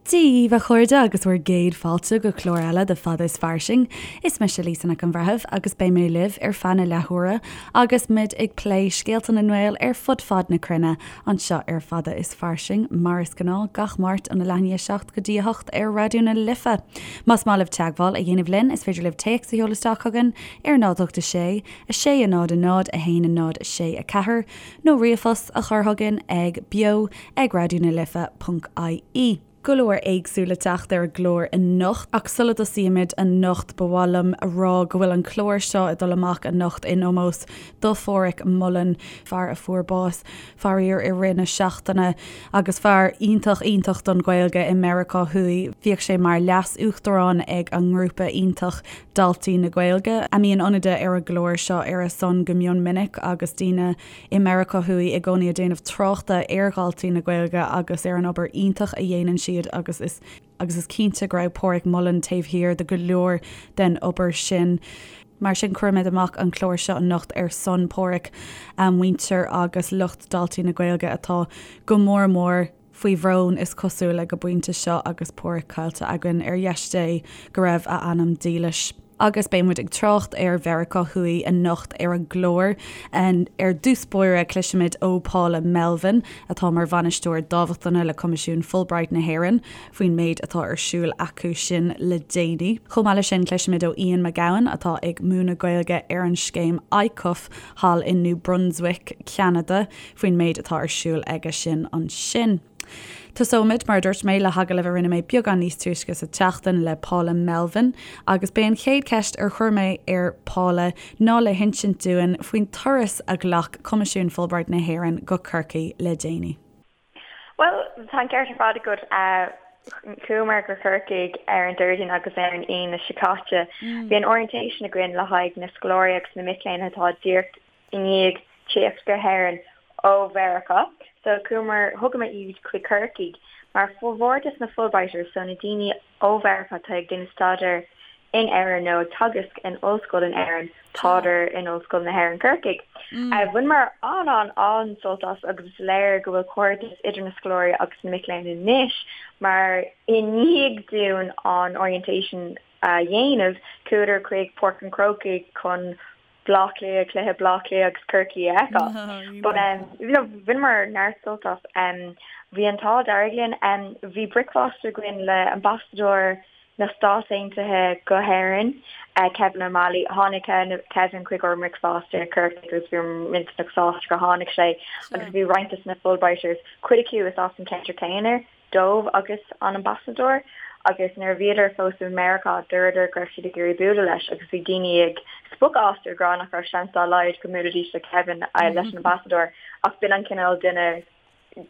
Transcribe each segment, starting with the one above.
Dia dhaoibh, a chairde, agus bhur gcéad fáilte go clár eile de Fada is Fairsing. Is mise Lisa Nic an Bhreithimh agus beidh mé libh ar feadh na leathuaire agus muid ag plé scéalta na nGael ar fud fad na cruinne anseo ar Fada is Fairsing, mar is gnáth, gach Máirt óna leath i ndiaidh 7 go dtí 8 ar Raidió na Life. Más maith libh teagmháil a dhéanamh linn, is féidir libh téacs a sheoladh isteach chugainn ar 0 8 6 6 0 0 1 0 6 4 nó ríomhphost a chur chugainn ag beo ag raidió na life ponc ie. Go leor éagsúil le teacht ar an gclár anocht, ach sula dtosaímid anocht ba mhaith liom a rá go bhfuil an clár seo ag dul amach anocht in ómós do Pháraic Mullen, fear a fuair bás faraor i rith na seachtaine agus fear iontach iontach don Ghaeilge i Meiriceá Thuaidh. Bhíodh sé mar leas-uachtarán ag an ngrúpa iontach Daltaí na Gaeilge, a mbíonn ionadaithe ar an gclár seo ar a son go mion minic agus daoine i Meiriceá Thuaidh i gcónaí ag déanamh tráchta ar Dhaltaí na Gaeilge agus ar an obair iontach a dhéanann siad agus is agus is cinnte go raibh Páraic Mullen taobh thiar de go leor den obair sin. Mar sin cuirimid amach an clár seo anocht ar son Páraic, a mhuintir agus lucht Daltaí na Gaeilge atá go mór mór faoi bhrón is cosúil ag an bpointe seo agus Páraic caillte againn, ar dheis Dé go raibh a anam dílis. Agus beidh muid ag trácht ar Mheiriceá Thuaidh anocht ar an gclár. Ar dtús báire cloisfimid ó Paula Melvin, atá mar bhainisteoir dámhachtana le Coimisiún Fulbright na hÉireann, faoin méid atá ar siúl acu sin le déanaí. Chomh maith leis sin cloisfimid ó Ian McGowan, atá ag múineadh Gaeilge ar an scéim ICUF thall i New Brunswick, Ceanada, faoin méid atá ar siúl aige sin ansin. Tosóimid, mar a dúirt mé, le hagallamh a rinne mé beagán níos túisce sa tseachtain le Paula Melvin agus b'é an chéad cheist ar chuir mé ar Paula ná le hinsint dúinn faoin turas a ghlac Coimisiún Fulbright na hÉireann go Corcaigh le déanaí. Bhuel, tá an ceart ar fad agat. Chuamar go Corcaigh ar an Déardaoin agus ar an Aoine seo caite. Bhí an orientation againn le haghaidh na scoláirí agus na mic léinn atá díreach i ndiaidh tíocht go hÉirinn ó Mheiriceá. So chuamar, thugamar iad chuig Corcaigh mar formhór des na Fulbrighters, so na daoine ó Mheiriceá atá ag déanamh staidéir in Éirinn nó ag teagasc in ollscoil in Éirinn, tádar in Ollscoil na hÉireann Corcaigh. Bhaineamar an-an-an-sult as agus is léir go bhfuil cairdeas idir na scoláirí agus na mic léinn anois mar i ndiaidh dúinn an orientation a dhéanamh, chuadar chuig Páirc an Chrócaigh chun Bleá Cliath, cluiche Bleá Cliath agus Corcaigh a fheiceáil. But um, you know, bhaineamar neart sult as. Um, bhí an t-ádh dearg linn. Um, bhí bricfeasta againn le ambasadóir na Stát Aontaithe go hÉirinn, uh, Kevin O'Malley. Tháinig Kevin chuig ár mbricfeasta i Corcaigh agus bhí millteanach sásta gur tháinig sé agus bhí roinnt de na Fulbrighters, cuid acu is as an ceantar céanna. dóibh agus an ambasadóir agus nuair a bhíodar fós i Meiriceá dúradar go raibh siad ag iarraidh bualadh leis agus bhí daoine ag spochadh as ag rá nach raibh seans dá laghad go mbuailfidís le Kevin leis an ambasadóir ach b'in an cineál duine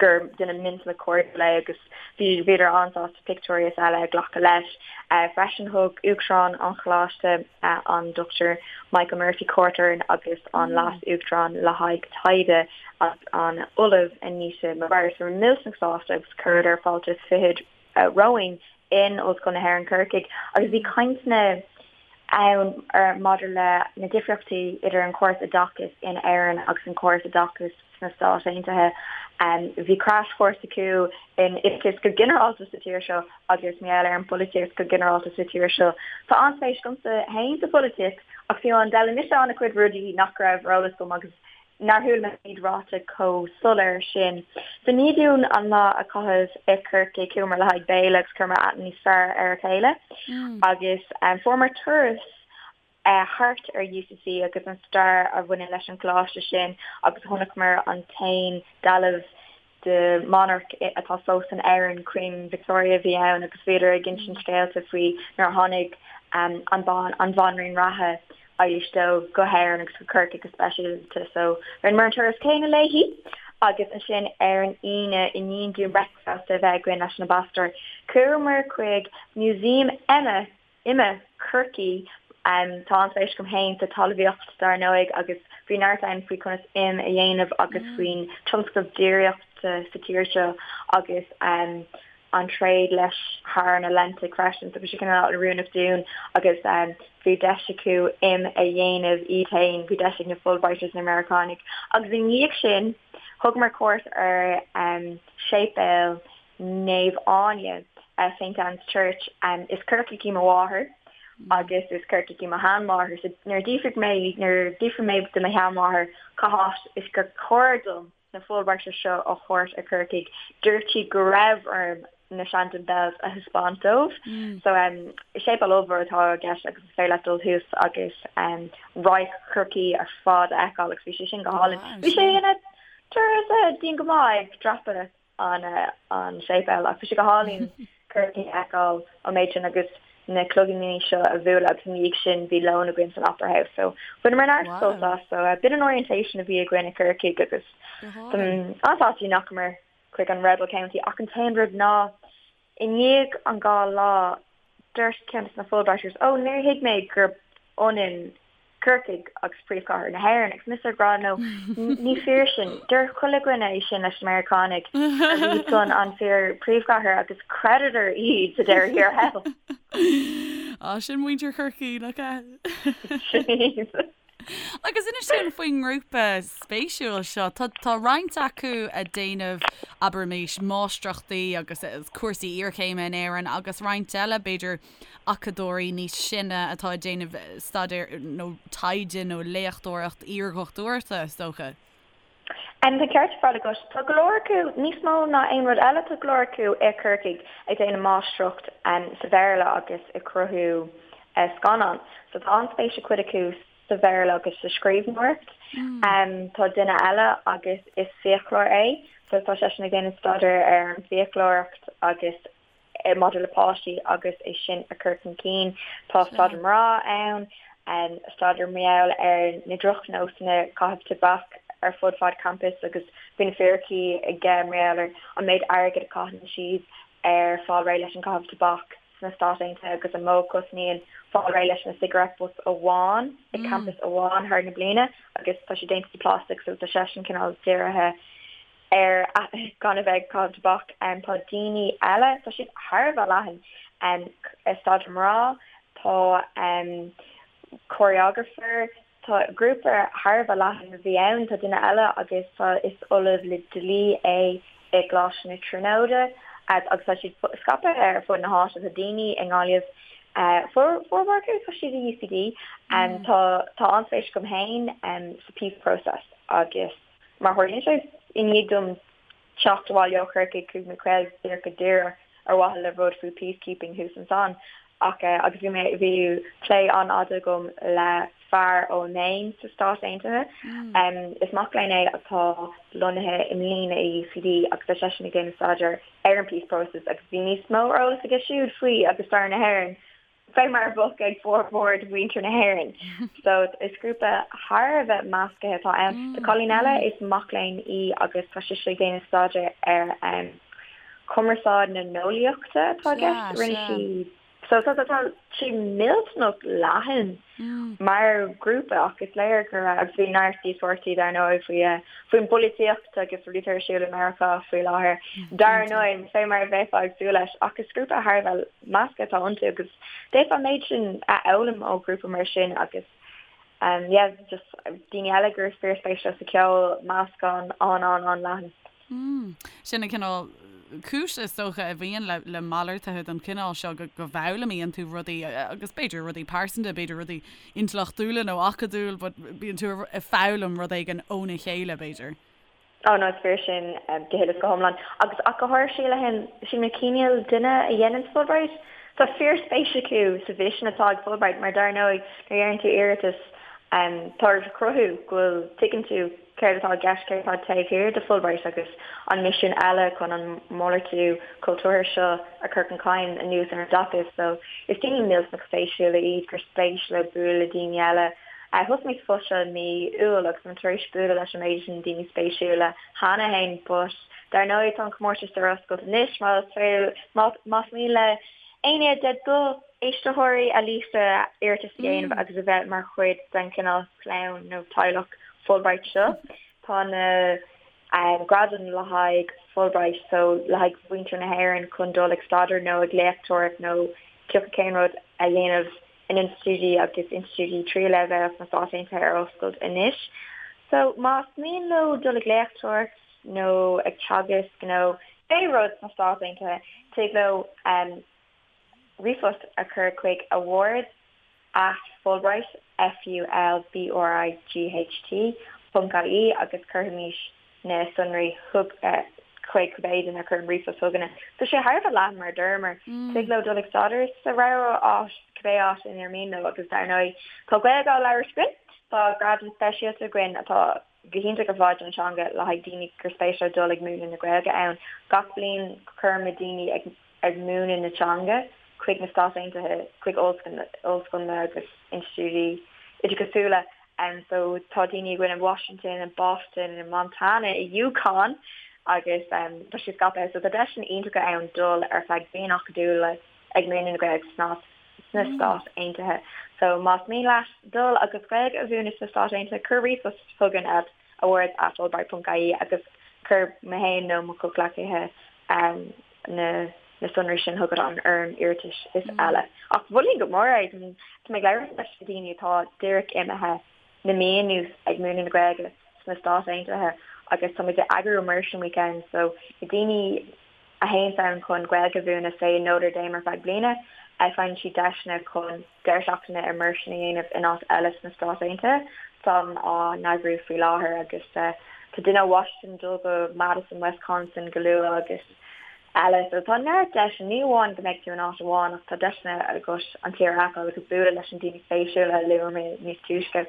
gur duine millteanach cairdiúil é agus bhí bhíodar an-sásta pictiúirí is eile a ghlacadh leis. Freisin thug Uachtarán an Choláiste an Dr Michael Murphy cuairt orainn agus an Leas-Uachtarán le haghaidh taighde an Ollamh Anita Maguire. So bhí millteanach sásta agus chuireadar fáilte is fichead romhainn in Ollscoil na hÉireann Corcaigh agus bhí cainteanna ann maidir le na difríochtaí idir an córas oideachais in Éirinn agus an córas oideachais sna Stáit Aontaithe. Bhí crash course acu in oideachas go ginearálta sa tír seo agus mar gheall ar an bpolaitíocht go ginearálta sa tír seo. Tá an-spéis agamsa féin sa pholaitíocht ach fiú amháin d'fhoghlaim mise an-chuid rudaí nach raibh ar eolas agam agus nár chuala mé iad ráite chomh soiléir sin. So i ndiaidh dúinn an lá a chaitheamh i Corcaigh, chuamar le haghaidh béile agus chuireamar aithne níos fearr ar a chéile agus fuaireamar turas thart ar UCC agus an stair a bhaineann leis an gcoláiste sin agus chonaiceamar an t-aon dealbh de monarch atá fós in Éirinn, Queen Victoria a bhí ann agus bhíodar ag insint scéalta faoi nuair a tháinig an an bhanríon reatha Eilís II go hÉirinn agus go Corcaigh go speisialta so rinneamar an turas céanna léi agus ansin ar an Aoine i ndiaidh dúinn bricfeasta a bheith againn leis an ambasadóir chuamar chuig Museum Ime Ime Chorcaí. Tá an-spéis agam féin sa talmhaíocht dar ndóigh agus bhí neart ann faoi conas im a dhéanamh agus faoin tionscal déiríochta sa tír seo agus an tréad leis thar an Atlantaigh freisin. So bhí sé cineál oiriúnach dúinn agus bhí deis acu im a dhéanamh iad féin, bhí deis ag na Fulbrighters na Meiriceánaigh. Agus i ndiaidh sin thugamar cuairt ar séipéal Naomh Áine. St Anne's Church. Is Corcaíoch í mo mháthair agus is Corcaíoch í mo sheanmháthair so nuair a d'fhiafraigh mé, nuair a d'fhiafraigh mé de mo sheanmháthair cá háit is gur chóir dom na Fulbrighters seo a thabhairt ar Corcaigh, dúirt sí go raibh orm na Shandon Bells a thaispeáint dóibh. So séipéal ollmhór atá i gceist agus is féidir leat dul thuas agus radharc Chorcaí ar fad a fheiceáil agus bhí sé sin go hálainn. Bhí sé ina turas dian go maith ag dreapadh an an séipéal ach bhí sé go hálainn Corcaigh a fheiceáil an méid sin agus na cloigíní seo a bhualadh agus ina dhiaidh sin bhí lón againn san Opera House so bhaineamar neart sult as so b'in an orientation a bhí againn i Corcaigh agus an-sásta nach ndeachamar chuig an Rebel County ach an t-aon rud ná i ndiaidh an dá lá dúirt ceann de na Fulbrighters ó níor thuig mé gurb ionann Corcaigh agus príomhchathair na hÉireann agus mise ag rá no ní fíor sin deir chuile dhuine é sin leis na Meiriceánaigh gurb iad san an fíor príomhchathair agus chreideadar iad sa deireadh thiar thall. Á sin muintir Chorcaí nach ea? Sin iad. Agus inis dúinn faoin ngrúpa spéisiúil seo. Tá tá roinnt acu ag déanamh, abraimis, máistreachtaí agus cúrsaí iarchéime in Éirinn agus roinnt eile, b'fhéidir, acadóirí níos sine atá ag déanamh staidéar nó taighde nó léachtóireacht iardhochtúireachta, is dócha. Tá an ceart ar fad agat. Tá go leor acu, níos mó ná aon rud eile, tá go leor acu i Corcaigh ag déanamh máistreacht sa Bhéarla agus ag cruthú scannán. So tá an-spéis ag cuid acu sa Bhéarla agus sa scríbhneoireacht. Tá duine eile agus is fiaclóir é, so tá seisean ag déanamh staidéar ar an bhfiaclóireacht agus maidir le páistí agus é sin a chur chun cinn. Tá staidéar mná ann, staidéar mar gheall ar na drochnósanna caitheamh tobac ar fud fad campus agus bhí na fíricí aige mar gheall ar an méid airgid a chaitheann siad ar fáil réidh leis an gcaitheamh tobac sna Stáit Aontaithe agus an mó a chosnaíonn fáil réidh leis na cigarette butts amháin i campus amháin thar na bliana agus tá sé déanta de plastic so tá seisean cineál dírithe ar gan a bheith ag caitheamh tobac. Tá daoine eile, tá siad thar a bheith leathan, staidéar mná, tá choreographer, tá grúpa thar a bheith leathan a bhí ann, tá duine eile agus tá is ollamh le dlí é i gColáiste na Tríonóide agus tá siad scaipthe ar fud na háite, tá daoine i nGaillimh, formhór acu tá siad i UCD. Tá tá an-spéis agam féin sa peace process agus Mar a tharlaíonn sé, i ndiaidh dom teacht abhaile ó Chorcaigh chuaigh mé caol díreach go Doire ar mhaithe le rud faoi peacekeeping thuas ansan ach agus bhí mé bhí plé an-fhada agam le fear ó Maine sna Stáit Aontaithe. Is mac léinn é atá lonnaithe i mbliana i UCD agus tá seisean ag déanamh staidéar ar an peace process agus bhí níos mó eolas aige siúd faoi agus stair na hÉireann fé mar a bheadh ag formhór de mhuintir na hÉireann. So is grúpa thar a bheith meascaithe atá ann. Tá cailín eile, is mac léinn í agus tá sise ag déanamh staidéar ar chumarsáid na n-eolaíochta atá i gceist. Rinne sí so tá tá sé millteanach leathan mar ghrúpa ach is léir go raibh agus bhí neart díospóireachtaí dar ndóigh faoi faoin bpolaitíocht agus rudaí atá ar siúl i Meiriceá faoi láthair. Dar ndóigh, fé mar a bheifeá ag súil leis ach is grúpa thar a bheith measctha atá iontu agus d'fhéadfá an méid sin a fhoghlaim ó ghrúpa mar sin agus yeah just daoine eile gur fíorspéis leo sa cheol, meascán an-an-an-leathan. Mm. Sin an cineál cúis is dócha a bhíonn le le malartuithe den chineál seo go go bhfoghlaimíonn tú rudaí agus b'fhéidir rudaí pearsanta, b'fhéidir rudaí intleachtúla nó acadúil but bíonn tú ag foghlaim rud éigin óna chéile b'fhéidir. Oh no, is fíor sin go huile is go hiomlán. Agus ach go háirithe sílim, sílim an cineál duine a dhéanann Fulbright, tá fíorspéis acu sa mhisean atá ag Fulbright mar dar ndóigh nuair a dhéanann tú iarratas tá ort a chruthú go bhfuil, tuigeann tú céard atá i gceist, céard atá taobh thiar de Fulbright agus an misean eile chun an malartú cultúrtha seo a chur chun cinn anuas ar an dtaca. So is daoine millteanach spéisiúla iad gur spéis leo bualadh le daoine eile. Thosaigh mé sa phost seo i mí Iúil agus táim tar éis bualadh leis an méid sin daoine spéisiúla cheana féin but dar ndóigh tá an comórtas ar oscailt anois más más mian le éinne de do éisteoirí a Lisa iarratas a dhéanamh agus a bheith mar chuid den chineál clann nó teaghlach Fulbright seo. Tá na gradaim le haghaidh Fulbright so le haghaidh mhuintir na hÉireann chun dul ag staidéar nó ag léachtóireacht nó cioca cén rud a dhéanamh in institiúidí agus institiúidí tríú leibhéal sna Stáit Aontaithe ar oscailt anois. So más mian leo dul ag léachtóireacht nó ag teagasc nó. Cibé rud sna Stáit Aontaithe, tig leo ríomhphost a chur chuig awards at Fulbright, F-U-L-B-R-I-G-H-T, ponc IE agus cuirfimid na sonraí chuig cibé duine a chuireann ríomhphost chugainne. Tá sé thar a bheith leathan mar a dúramar. Tig leo dul ag staidéar sa rogha áit, cibé áit inar mian leo agus dar ndóigh tá Gaeilge á labhairt againn, tá gradam speisialta againn atá go hiontach ar fad don teanga le haghaidh daoine gur spéis leo dul ag múineadh na Gaeilge ann. Gach bliain cuirimid daoine ag ag múineadh na teanga chuig na Stáit Aontaithe, chuig ollscoileanna agus institiúidí oideachasúla. So tá daoine againn i Washington, i Boston, i Montana, i UConn agus tá sé scaipthe. So tá deiseanna iontacha ann dul ar feadh bliain acadúil ag múineadh na Gaeilge sna sna Stáit Aontaithe. So más mian leat dul agus Gaeilge a mhúineadh sna Stáit Aontaithe, cuir ríomhphost chugainn at awards at fulbright.ie agus cuir mé féin nó mo chomhghleacaithe na na sonraí sin chugat an fhoirm iarratais is eile. Ach mholfainn go mór é, tá mé ag labhairt leis na daoine atá díreach imithe le mí anuas ag múineadh na Gaeilge sna Stáit Aontaithe agus tá muid ag eagrú immersion weekends so na daoine a théanns ann chun Gaeilge a mhúineadh say i Notre Dame ar feadh bliana, faigheann siad deiseanna chun deireadh seachtaine immersion a dhéanamh in áit eile sna Stáit Aontaithe. Táim á n-eagrú faoi láthair agus tá duine ó Washington ag dul go Madison, Wisconsin go luath agus eile. So tá neart deiseanna, ní amháin go mbeidh tú in áit amháin ach tá deiseanna agat an tír a fheiceáil agus bualadh leis an daoine spéisiúla a luaigh mé níos túisce.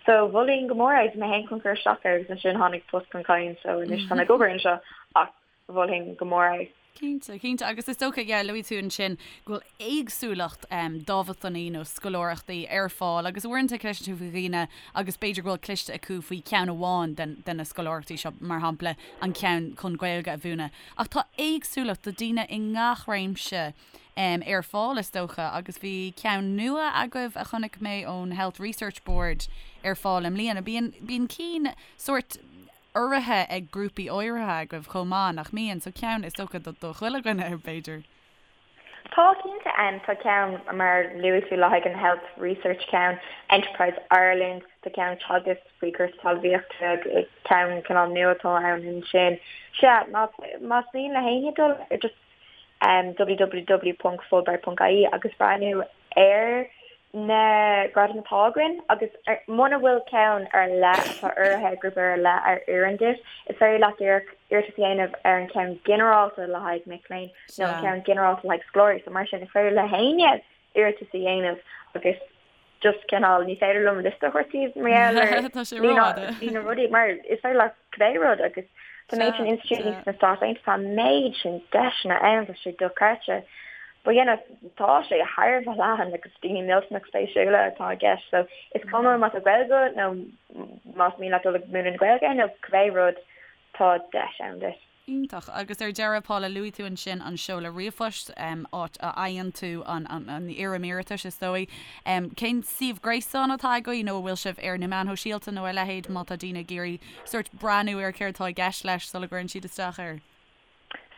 So mholfainn go mór é, bhí mé féin chun cur isteach air agus ansin tháinig post chun cinn so anois tá mé ag obair anseo ach mholfainn go mór é. Cinnte, cinnte. Agus is dócha, yeah, luaigh tú ansin go bhfuil éagsúlacht dámhachtainí nó scoláireachtaí ar fáil agus uaireanta cloiseann tú faoi dhaoine agus b'fhéidir go bhfuil cloiste acu faoi cheann amháin den, de na scoláireachtaí seo, mar shampla an ceann chun Gaeilge a mhúineadh. Ach tá éagsúlacht do daoine i ngach réimse ar fáil is dócha agus bhí ceann nua agaibh a chonaic mé ón Health Research Board ar fáil i mbliana. Bíonn, bíonn cinn sórt urraithe ag grúpaí áirithe agaibh chomh maith, nach mbíonn? So ceann, is dócha, do chuile dhuine, b'fhéidir. Tá, cinnte. Tá ceann, mar luaigh tú, le haghaidh an Health Research ceann, Enterprise Ireland, tá ceann Teagasc faoi chúrsaí talmhaíochta, ceann cineál nua atá ann ansin. Sea, más mian le héinne dul ar just www.fulbright.ie agus breathnú ar na gradaim atá againn agus muna bhfuil ceann ar leith atá urraithe ag grúpa ar leith a oireann duit, is féidir leat díreach iarratas a dhéanamh ar an cheann ginearálta le haghaidh mic léinn nó an ceann ginearálta le haghaidh scoláirí. So mar sin, is féidir le héinne iarratas a dhéanamh agus just cineál ní féidir liom liosta a thabhairt daoibh mar gheall ar Tá sé rófhada. líon na rudaí mar is féidir leat cibé rud agus tá méid sin institiúidí sna Stáit Aontaithe, tá an méid sin deiseanna ann, tá sé dochreidte. But you know, tá sé thar a bheith leathan agus daoine millteanach spéisiúla atá i gceist so is cuma má tá Gaeilge agat nó más mian leat dul ag múineadh na Gaeilge nó cibé rud, tá deis ann duit. Iontach. Agus ar deireadh, Paula, luaigh tú ansin an seoladh ríomhphoist, áit a fhaigheann tú an fhoirm iarratais, is dóigh. Cén suíomh gréasáin atá agaibh nó an bhfuil sibh ar na meáin shóisialta nó a leithéid má tá daoine ag iarraidh sórt breathnú ar céard atá i gceist leis sula gcuireann siad isteach air?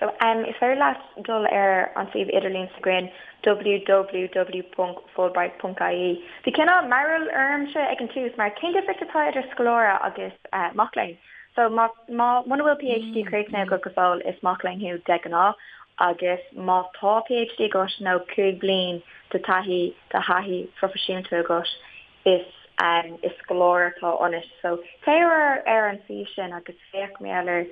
So, is féidir leat dul ar an suíomh idirlín s'againn www.fulbright.ie. Bhí cineál mearbhall ormsa ag an tús mar cén difríocht atá idir scoláire agus mac léinn? So, má, má, muna bhfuil PhD críochnaithe agat go fóill is mac léinn thú de ghnáth agus má tá PhD agat nó 5 bliain de taithí, de thaithí phroifisiúnta agat is, is scoláire atá ionat. So, téigh ar, ar an suíomh sin agus féach mar gheall ar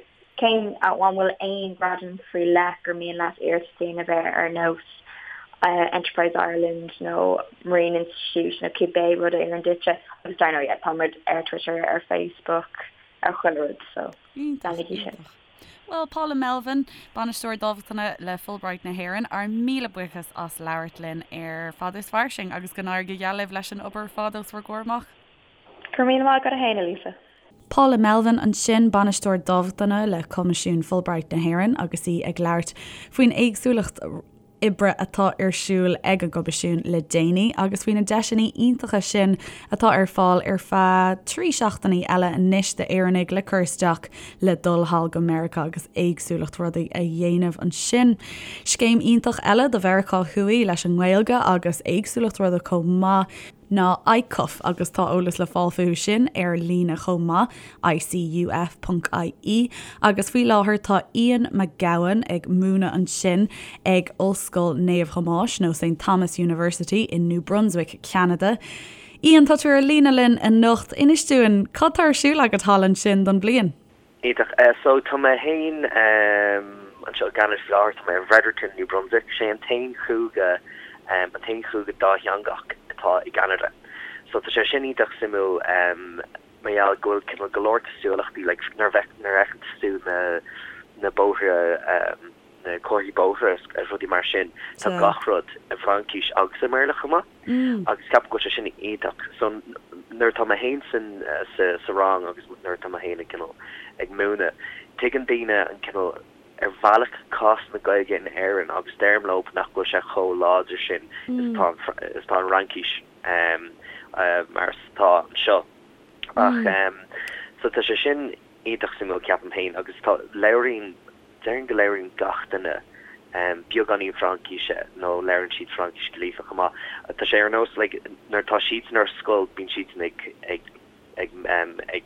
Cén, an bhfuil aon ghradam faoi leith gur mian leat iarratas a dhéanamh air ar nós Enterprise Ireland nó Marine Institute nó cibé rud a oireann duitse agus dar ndóigh yeah tá muid ar Twitter, ar Facebook, ar chuile rud so leanaigí sin. Bhuel, Paula Melvin, Bainisteoir Dámhachtana le Fulbright na hÉireann, ár míle buíochas as labhairt linn ar Fada is Fairsing agus go n-éirí go geal libh leis an obair ar fad os bhur gcomhair amach. Go raibh míle maith agat féin, a Lisa. Paula Melvin ansin, Bainisteoir Dámhachtana le Coimisiún Fulbright na hÉireann agus í ag labhairt faoin éagsúlacht oibre atá ar siúl ag an gCoimisiún le déanaí agus faoi na deiseanna iontacha sin atá ar fáil ar feadh 3 seachtainí eile anois d'Éireannaigh le cur isteach le dul thall go Meiriceá agus éagsúlacht rudaí a dhéanamh ansin. Scéim iontach eile do Mheiriceá Thuaidh leis an nGaeilge agus éagsúlacht rudaí chomh maith. ná ICUF agus tá eolas le fáil fúthu sin ar líne chomh maith, icuf.ie, agus faoi láthair tá Ian McGowan ag múineadh ansin ag Ollscoil Naomh Thomáis nó St Thomas University in New Brunswick, Ceanada. Ian, tá tú ar líne linn anocht. Inis dúinn, cad tá ar siúl agat thall ansin don bhliain? Iontach. So tá mé féin anseo i gCeanada faoi láthair, tá mé i bhFredericton, New Brunswick. Sé an t-aon chúige, an t-aon chúige dátheangach atá i gCeanada. So tá sé sin iontach suimiúil mar gheall go bhfuil cineál go leor cosúlachtaí, like nuair a bheith, nuair a fheiceann tú na, na bóithre, na comharthaí bóithre is rudaí mar sin, tá gach rud i bhFraincis agus i mBéarla chomh maith. Agus ceapaim go bhfuil sé sin iontach. So nuair atá mé féin san sa sa rang agus nuair atá mé féin ag cineál ag múineadh, tuigeann daoine an cineál ar bhealach cás na Gaeilge in Éirinn agus deirim leo nach bhfuil sé chomh láidir sin is atá an is atá an Fhraincis mar is atá anseo. Ach so tá sé sin iontach suimiúil ceapaim féin agus tá labhraíonn Déarfainn go labhraíonn gach duine beagáinín Fraincíse nó labhraíonn siad Fraincis go líofa chomh maith. Tá sé ar nós like nuair atá siadsan ar scoil bíonn siadsan ag ag ag ag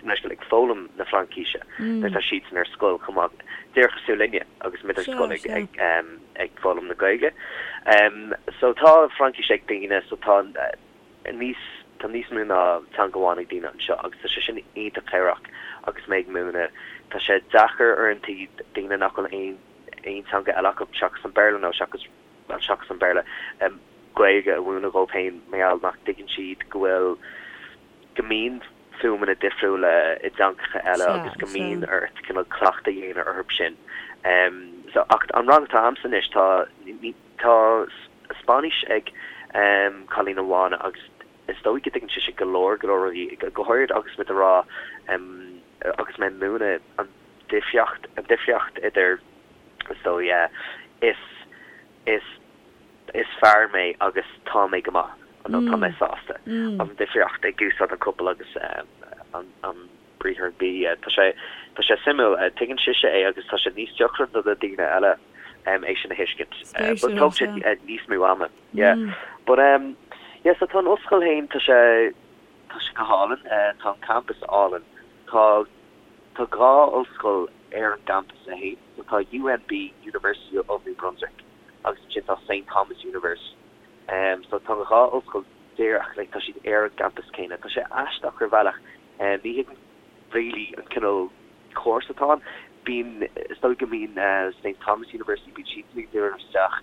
ag foghlaim na Fraincíse nuair atá siadsan ar scoil chomh maith. Díreach cosúil linne agus muid ar scoil ag ag ag foghlaim na Gaeilge. So tá Fraincis ag daoine so tá níos, tá níos mó ná teanga amháin ag daoine anseo agus tá sé sin iontach cabhrach agus mé ag múineadh. Tá sé deacair uaireanta daoine nach bhfuil aon, aon teanga eile acu seachas an Béarla nó seachas, bhuel seachas an Béarla, Gaeilge a mhúineadh dhóibh féin mar gheall nach dtuigeann siad go bhfuil, go mbíonn fuaimeanna difriúla i dteangacha eile agus go mbíonn ort cineál cleachtadh a dhéanamh orthu sin. So, ach an rang atá a'msa anois tá, ní, Tá Spáinnis ag cailín amháin agus is dóigh go dtuigeann sise go leor, go leor rudaí, go háirid agus muid ag rá, agus mé ag múineadh an difríocht, an difríocht idir, is dóigh, is, is, is fear mé agus tá mé go maith nó tá mé sásta, an difríocht ag úsáid an copail agus an, an. briathar be. Tá sé, tá sé suimiúil. Tuigeann sise é agus tá sé níos deacra do na daoine eile é sin a thuiscint. But Spéisiúil, tógann sé sea. níos mó ama. Yeah. But um, yeah, so tá an ollscoil féin, tá sé, tá sé go hálainn. Tá an campus álainn. Tá, tá dhá ollscoil ar an gcampas é féin. So tá UNB, University of New Brunswick, agus ansin tá Saint Thomas University. Um, so tá an dhá ollscoil díreach, like, tá siad ar an gcampas céanna. Tá sé aisteach ar bhealach. Ní thuigim really an cineál córas atá ann. Bíonn, is dóigh go mbíonn St Thomas University, bíonn siadsan ag díriú isteach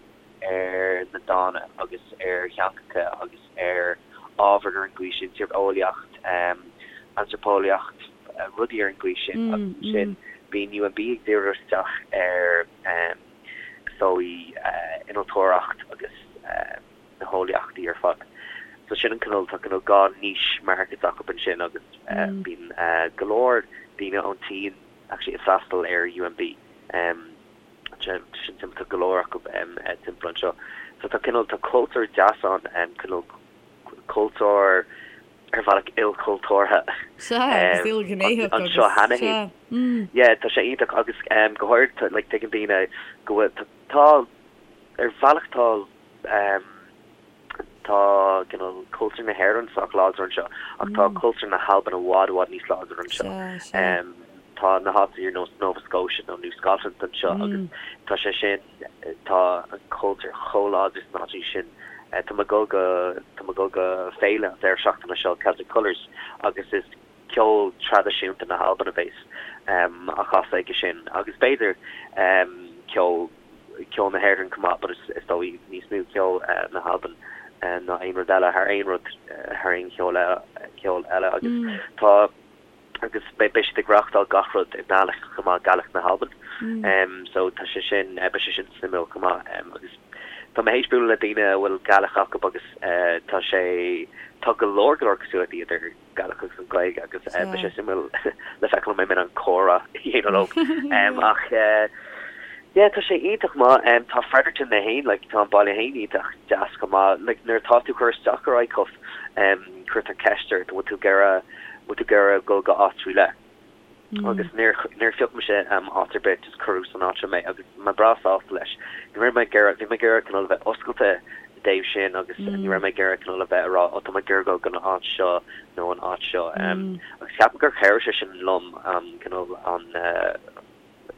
ar na dána agus ar theangacha agus ar ábhair ar an gcaoi sin, tíreolaíocht, antraipeolaíocht, rudaí ar an gcaoi sin agus ansin bíonn UNB ag díriú isteach ar, is dóigh, innealtóireacht agus. na heolaíochtaí ar fad. So sin an cineál, tá cineál dhá niche markets acu ansin agus bíonn go leor daoine ón tSín actually ag freastal ar UNB. Sin suimiúil, tá go leor acu timpeall anseo. So tá cineál, tá cultúr deas ann, cineál cultúr ar bhealach ilchultúrtha Sea, agus ilghnéitheach agus, anseo cheana féin. sea. Yeah, tá sé iontach agus go háirid, like tuigeann daoine go bhfuil, tá, ar bhealach tá, Tá cineál cultúr na hÉireann sách láidir anseo ach tá cultúr na hAlban i bhfad i bhfad níos láidre anseo. Tá na háiteanna ar nós Nova Scotia nó New Scotland anseo agus tá sé sin, tá an cultúr chomh láidir sna háiteanna sin. Tá mé ag dul go, tá mé ag dul go féile an deireadh seachtaine seo, Celtic Colours, agus is ceol traidisiúnta na hAlban a bheas á chasadh aige sin agus b'fhéidir ceol ceol na hÉireann chomh maith but is dóigh níos mó ceol na hAlban ná aon rud eile, thar aon rud, thar aon cheol ceol eile agus tá agus beidh siad ag reáchtáil gach rud i nGaelic chomh maith, Gaelic na hAlban. So tá sé sin, beidh sé sin suimiúil chomh maith agus tá mé théis bualadh le daoine a bhfuil Gaelic acu agus tá sé, tá go leor go leor cosúlachtaí idir Gaelic agus an Ghaeilge agus beidh sé suimiúil le feiceáil an mbeidh mé in ann comhrá a dhéanamh leo. Ach yeah, tá sé iontach maith. Tá Fredericton é féin, like, tá an baile féin iontach deas chomh maith. Like, nuair atá tú ag cur isteach ar ICUF, cuirtear ceist ort, an bhfuil tú ag iarraidh, bhfuil tú ag iarraidh dul go áit faoi leith? Agus níor, níor phioc mise áit ar bith, just cuireadh san áit seo mé agus mé breá sásta leis. Ní raibh mé ag iarraidh, bhí mé ag iarraidh cineál a bheith oscailte. dtaobh sin agus ní raibh mé ag iarraidh cineál a bheith ag rá oh tá mé ag iarraidh dul go an áit seo nó an áit seo. Agus ceapaim gur chabhraigh sé sin liom cineál an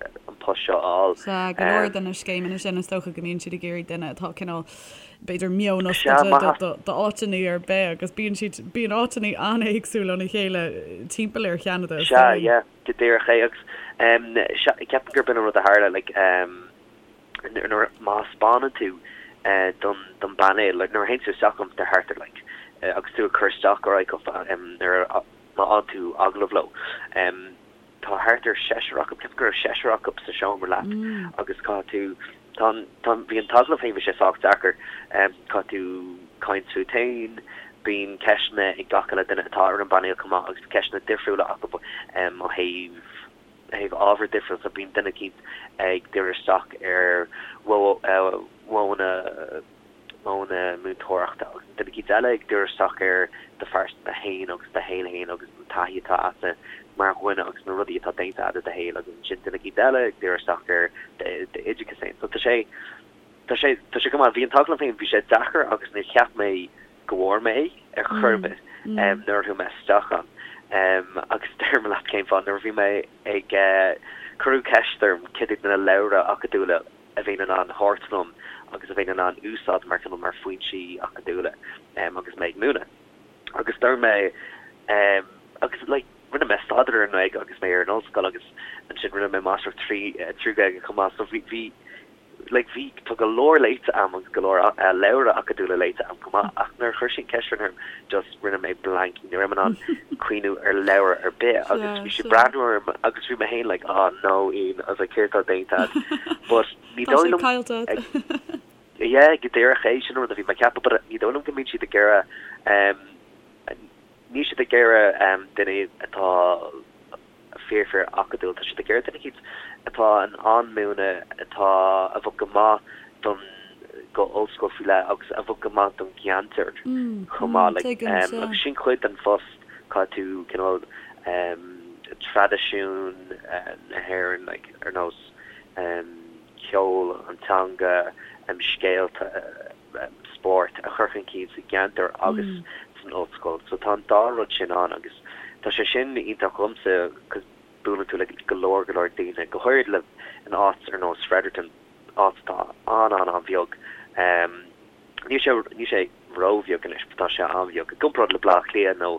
an post seo a fháil. Sea, go leor de na scéimeanna sin is dócha go mbíonn siad ag iarraidh duine atá cineál b'fhéidir meon oscailte d'áiteanna ar bith agus bíonn siad, bíonn áiteanna an-éagsúil óna chéile timpeall ar Cheanada. Sea, yeah, go díreach é agus ceapaim gurb in an rud a tharla like nuair má thaispeánann tú don don bpainéal like nuair a théann tú isteach um thart ar like agus tú ag cur isteach ar ICUF nuair a má fhaigheann tú agallamh leo tá thart ar seisear acu ceapaim go raibh seisear acu sa seomra leat agus caithfidh tú tá an tá bhí an t-agallamh féin bhí sé sách deacair caithfidh tú caint fút féin bíonn ceisteanna ag gach uile duine atá ar an bpainéal chomh maith agus ceisteanna difriúla acu ó thaobh thaobh ábhar difriúil so bíonn duine eicínt ag díriú isteach ar mhodhanna modhanna múinteoireachta agus duine eicínt eile ag díriú isteach ar do phearsanta féin agus do shaol féin agus an taithí atá agatsa mar dhuine agus na rudaí atá déanta agat i do shaol agus ansin duine eicínt eile ag díriú isteach ar d'oideachas féin. So tá sé tá sé tá sé go maith. Bhí an t-agallamh féin bhí sé deacair agus níor cheap mé go bhfuair mé é ar chor ar bith nuair a chuaigh mé isteach ann. Agus déarfaidh mé leat cén fáth, nuair a bhí mé ag, cuireadh ceist orm cad iad na leabhra acadúla a bheinn in ann thabhairt liom agus a bheinn in ann úsáid mar cineál mar foinsí acadúla agus mé ag múineadh. Agus dúirt mé agus like rinne mé staidéar ar an nGaeilge agus mé ar an ollscoil agus ansin rinne mé máistreacht trí Ghaeilge chomh maith so bhí bhí like bhí, tá go leor léite a'm agus go leor leabhra acadúla léite a'm chomh maith ach nuair a chuir siad an ceist sin orm just rinne mé blank, ní raibh mé in ann cuimhniú ar leabhar ar bith agus bhí siad breathnú orm agus bhí mé féin like oh no Ian, I was like céard atá déanta a'd but ní dóigh liom Tá sé caillte a'd. Yeah, go díreach é sin an rud a bhí mé ag ceapadh but ní dóigh liom go mbíonn siad ag iarraidh um, níl siad ag iarraidh um, duine atá fíor fíor acadúil. Tá siad ag iarraidh duine eicínt atá in ann múineadh, atá, a bheadh go maith don, go ollscoil faoi leith agus a bheadh go maith don gceantar chomh maith. Like, agus sin cuid den phost, caithfidh tú cineál traidisiún na hÉireann, like, ar nós ceol, an teanga, scéalta, spórt a chur chun cinn sa gceantar agus san ollscoil. So tá an dá rud sin ann agus tá sé sin iontach dhomsa cos buaileann tú le go leor go leor daoine, go háirid le in áit ar nós Fredericton, áit atá an-an-an-bheag. Níl sé níl sé ró-bheag anois but tá sé an-bheag. I gcomparáid le Baile Átha Cliath nó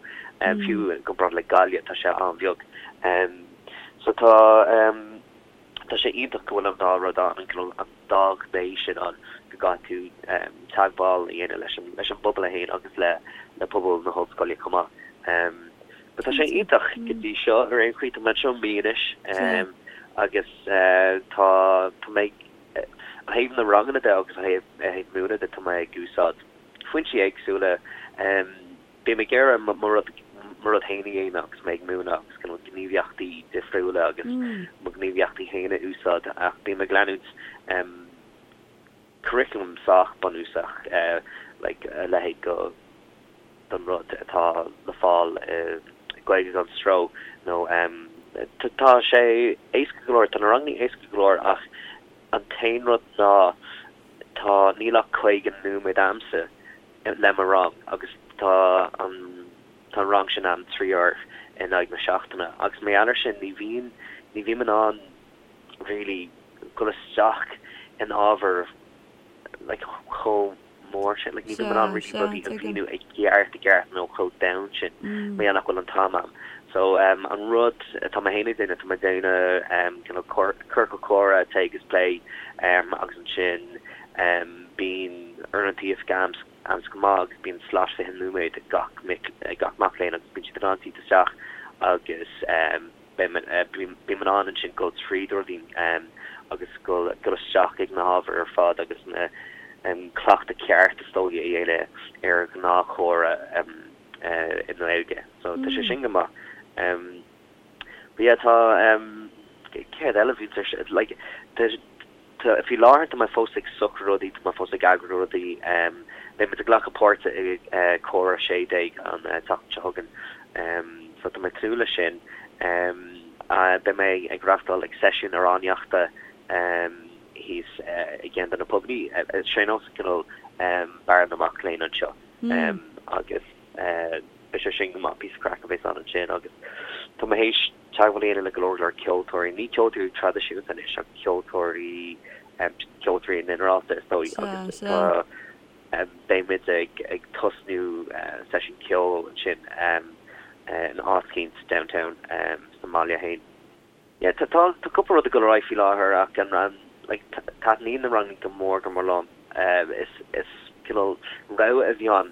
fiú i gcomparáid le Gaillimh tá sé an-bheag. So tá. Tá sé iontach go bhfuil an dá rud ann, an dá ghné sin ann, go gcaithfidh tú teagmháil a dhéanamh leis an leis an bpobal é féin agus le le pobal na hollscoile chomh maith. But tá sé iontach go dtí seo ar aon chaoi, tá mé anseo mí anois agus tá tá mé ó thaobh na ranganna de agus ó thaobh ó thaobh múineadh de tá mé ag úsáid foinsí éagsúla. Bím ag iarraidh mo rud mo rud féin a dhéanamh agus mé ag múineadh agus cineál gníomhaíochtaí difriúla agus mo ghníomhaíochtaí féin a úsáid ach bím ag leanúint curriculum sách bunúsach like a leithéid go don rud atá le fáil i Gaeilge gan Stró nó tá sé éasca go leor, tá na ranganna éasca go leor ach an t-aon rud ná tá níl ach 50 nóiméad a'msa le mo rang agus tá an tá an rang sin a'm 3 uair in aghaidh na seachtaine agus mar gheall ar sin ní bhíonn ní bhím in ann really dul isteach in ábhar like chomh mór sin like ní bhím in ann really rudaí a mhíniú i gceart i gceart nó chomh domhain sin mar gheall nach bhfuil an t-am a'm. So um an rud atá mé féin ag déanamh tá mé ag déanamh um cineál ciorcal comhrá téigh agus pléigh um agus ansin Bíonn uaireanta oifige a'msa go maith agus bíonn slot 20 nóiméad ag gach mic ag gach mac léinn agus bíonn siad in ann tíocht isteach agus bím in ann ansin dul tríd rudaí agus dul dul isteach ag na hábhair ar fad agus na cleachtadh ceart is dóigh a dhéanamh ar ghnáthchomhrá i nGaeilge. So tá sé sin go maith. But yeah tá céard eile a bhíonns ar like tá Tá, faoi láthair tá mé fós ag socrú rudaí, tá mé fós ag eagrú rudaí. Beidh muid ag glacadh páirte i Comhrá 16 an tseachtain seo chugainn so tá mé ag tnúth leis sin. Beidh mé ag reáchtáil ag seisiún amhránaíochta thíos i gceann de na pubannaí. Sé nós cineál. Barra na Mac Léinn anseo agus beidh sé sin go maith, píosa craic a bheas ann ansin agus tá mé théis teagmháil a dhéanamh le go leor leor ceoltóirí, ní ceoltóirí traidisiúnta anois ach ceoltóirí, ceoltóirí i nginearálta is dóigh agus tá beidh muid ag ag tosnú seisiún ceoil ansin in áit eicínt downtown sa mbaile féin. Yeah tá tá tá cúpla rud ag dul ar aghaidh faoi láthair ach an an like taitníonn na ranganna go mór go mór liom. Is is cineál rogha a bhí ann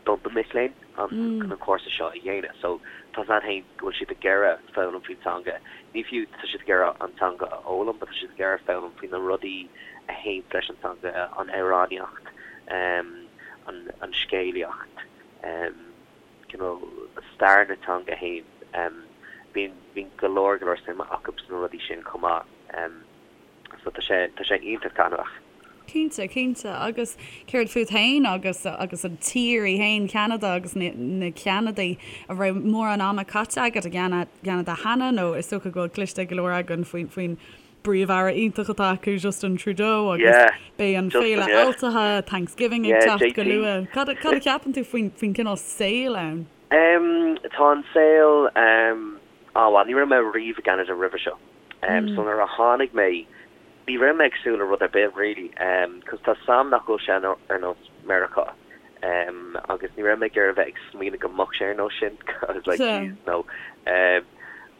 do na mic léinn an chun an cúrsa seo a dhéanamh. So tá a fhios a'd féin go bhfuil siad ag iarraidh foghlaim faoin teanga. Ní fiú tá siad ag iarraidh an teanga a fhoghlaim but tá siad ag iarraidh foghlaim faoi na rudaí a théann leis an teanga, an amhránaíocht, an an scéalaíocht, cineál stair na teanga féin. Bíonn bíonn go leor go leor suime acu sna rudaí sin chomh maith. So tá sé tá sé iontach taitneamhach. Cinnte, cinnte. Agus céard fút féin agus agus an tír í féin, Ceanada agus na na Ceanadaigh, an raibh mórán ama caite agat i gCeanada cheana nó is dócha go bhfuil cloiste ag go leor againn faoin faoin bPríomh-Aire iontach atá acu, Justin Trudeau, agus Yeah, beidh an Justin, Féile yeah. Altaithe, Thanksgiving, ag Yeah, teacht go JT. luath. Cad a cad a cheapann tú faoin faoin cineál saoil ann? Em, tá an saol, em, ah bhuel, ní raibh mé riamh i gCeanada roimhe seo. Em, so nuair a tháinig mé, ní raibh mé ag súil le rud ar bith really, em, 'cause tá 's a'm nach bhfuil sé ar nós Meiriceá. Em, agus ní raibh mé ag iarraidh a bheith ag smaoineamh go mbeadh sé ar nós sin, I was like, Sea. jeez, no. Em,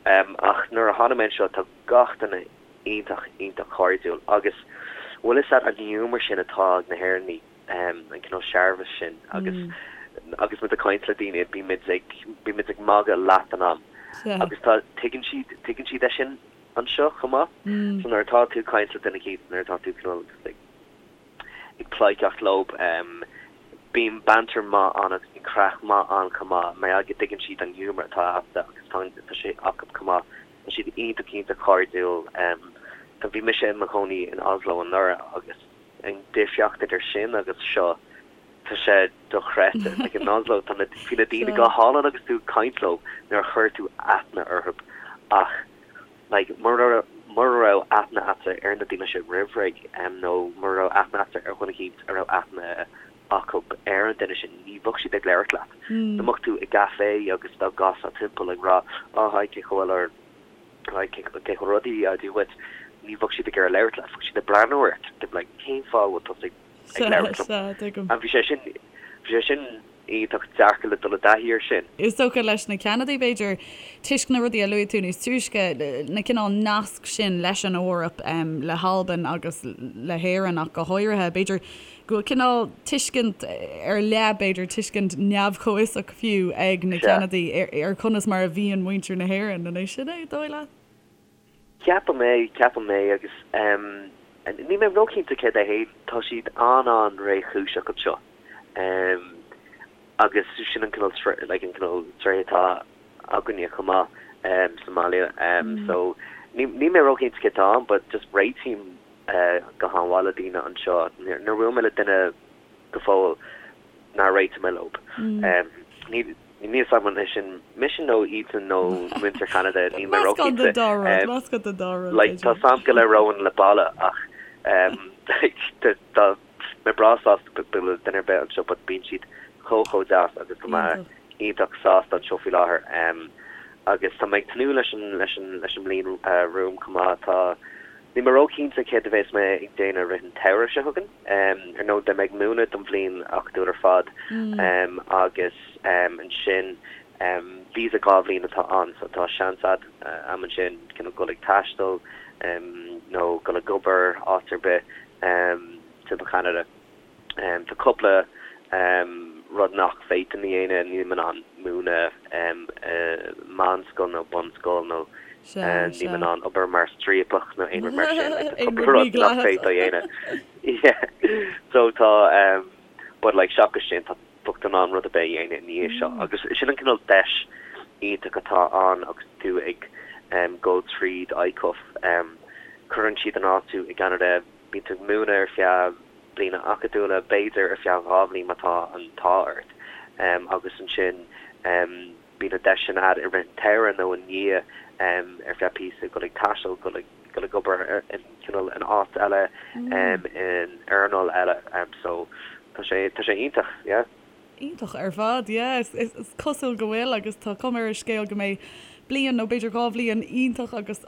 em, ach nuair a tháinig mé anseo, tá gach duine iontach, iontach cairdiúil agus bhfuil fhios a'd an giúmar sin atá ag na hÉireannaigh, an cineál searbhas sin agus agus muid ag caint le daoine bíonn muid ag, bíonn muid ag magadh leath den am agus tá, tuigeann siad, tuigeann siad é sin anseo chomh maith. So nuair atá tú ag caint le duine eicínt, nuair atá tú cineál ag. ag pleidhceacht leo. Bíonn banter maith ann agus bíonn craic maith ann chomh maith mar gheall go dtuigeann siad an giúmar atá agatsa agus tá tá sé acu chomh maith. Tá siad iontach iontach cairdiúil. Tá bhí mise i mo chónaí in Oslo anuraidh agus an difríocht idir sin agus seo tá sé dochreidte. Like in Oslo tá na bhí na daoine go hálainn agus tú ag caint leo nuair a chuir tú aithne orthu ach Like, mura mura raibh aithne a'dsa ar na daoine sin roimh ré, nó mura raibh aithne a'dsa ar dhuine eicínt a raibh aithne acu ar an duine sin, ní bheadh siad ag labhairt leat. Dá mbeadh tú i gcafé agus dá gcasfá timpeall ag rá, oh hi, cén chaoi a bhfuil or hi, cé cén chaoi a bhfuil rudaí, á Dia dhuit, ní bheadh siad ag iarraidh labhairt leat, bheadh siad ag breathnú ort, they'd be like, cén fáth a bhfuil tusa ag ag labhairt liom? Sea, tuigim. And bhí sé sin, bhí sé sin iontach deacair le dul i dtaithí air sin. Is dócha leis na Ceanadaigh, b'fhéidir, toisc na rudaí a luaigh tú níos túisce, na cineál nasc sin leis an Eoraip, le hAlbain agus le hÉirinn ach go háirithe, b'fhéidir go bhfuil cineál tuiscint ar leith, b'fhéidir tuiscint neamh-chomhfhiosach fiú, ag na Ceanadaigh ar conas mar a bhíonn muintir na hÉireann. An é sin é, dóigh leat? Ceapaim é, ceapaim é agus níl mé róchinnte céard é féin, tá siad an-an-réchúiseach anseo agus sin an cineál like an cineál tréith atá againne chomh maith sa mbaile so níl mé róchinnte céard atá ann but just réitím go han-mhaith le daoine anseo. Níor bhuail mé le duine go fóill nár réitigh mé leo. Níl a fhios agam an é sin mise nó iadsan nó muintir Cheanada, níl mé Meascán róchinnte. den dá rud, meascán den dá rud, Like, tá b'fhéidir. a fhios agam go labhróinn le balla ach tá mé breá sásta bualadh le duine ar bith anseo but bíonn siad chomh chomh deas agus tá mé Iontach. iontach sásta anseo faoi láthair. Agus tá mé ag tnúth leis an leis an leis an mbliain romham chomh maith. Tá Níl mé róchinnte céard a bheas mé ag déanamh i rith an tsamhraidh seo chugainn. Ar ndóigh, beidh mé ag múineadh don bhliain acadúil ar fad agus ansin visa 2 bhliain atá ann so tá seans a'd ansin cineál dul ag taisteal nó dul ag obair áit ar bith timpeall Cheanada. Tá cúpla rud nach bhféadfainn a dhéanamh, nílim in ann múineadh i meánscoil nó bunscoil nó nílim in ann obair mar striapach nó aon rud mar sin, like tá cúpla rud nach bhféadfá a dhéanamh. Yeah so tá but like seachas sin tá bheadh tú in ann rud ar bith a dhéanamh i ndiaidh seo agus sin an cineál deis iontach atá ann agus tú ag dul tríd ICUF. Cuireann siad in áit tú i gCeanada, bíonn tú ag múineadh ar feadh bliana acadúla, b'fhéidir ar feadh 2 bhliain má tá an t-ádh ort, agus ansin bíonn an deis sin a'd i rith an tsamhraidh nó i ndiaidh ar feadh píosa dul ag taisteal, dul ag. dul ag obair in cineál in áit eile in earnáil eile so tá sé tá sé iontach yeah. Iontach ar fad, yeah. Is cosúil go bhfuil agus tá cuma ar an scéal go mbeidh bliain nó b'fhéidir 2 bhliain iontach agus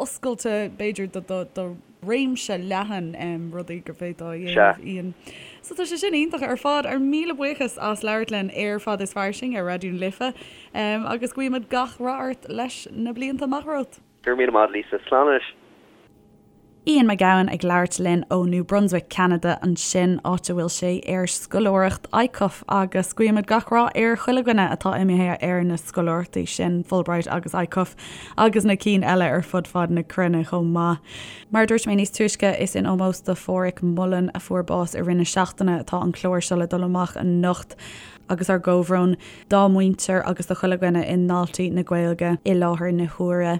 oscailte b'fhéidir do réimse leathan rudaí go bhféadfá a dhéanamh, Ian. So tá sé sin iontach ar fad. Ár míle buíochas as labhairt linn ar Fada is Fairsing ar Raidió na Life agus guímid gach rath ort leis na blianta amach romhat. Go raibh míle maith, Lisa. Slán anois. Ian Mac Gabhann ag labhairt linn ó New Brunswick, Ceanada ansin, áit a bhfuil sé ar scoláireacht ICUF agus guímid gach rath ar chuile dhuine atá imithe ar na scoláireachtaí sin, Fulbright agus ICUF agus na cinn eile ar fud fad na cruinne chomh maith. Mar a dúirt mé níos túisce, is in ómós do Pháraic Mullen a fuair bás i rith na seachtaine atá an clár seo le dul amach anocht. agus ár gcomhbhrón dá muintir agus do chuile dhuine i nDaltaí na Gaeilge i láthair na huaire.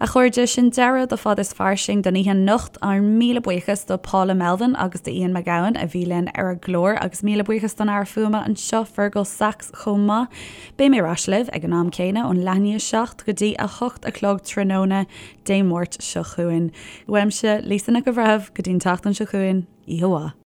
A chairde, sin deireadh do Fada is Fairsing don oíche anocht. Ár míle buíochas do Paula Melvin agus do Ian Mac Gabhann a bhí linn ar an gclár agus míle buíochas don fhear fuaime anseo, Fergal Sachs, chomh maith. Beidh mé ar ais libh ag an am céanna ón leath i ndiaidh 7 go dtí 8 a chlog tráthnóna Dé Máirt seo chugainn. Uaimse, Lisa Nic an Bhreithimh, go dtí an tseachtain seo chugainn, oíche mhaith.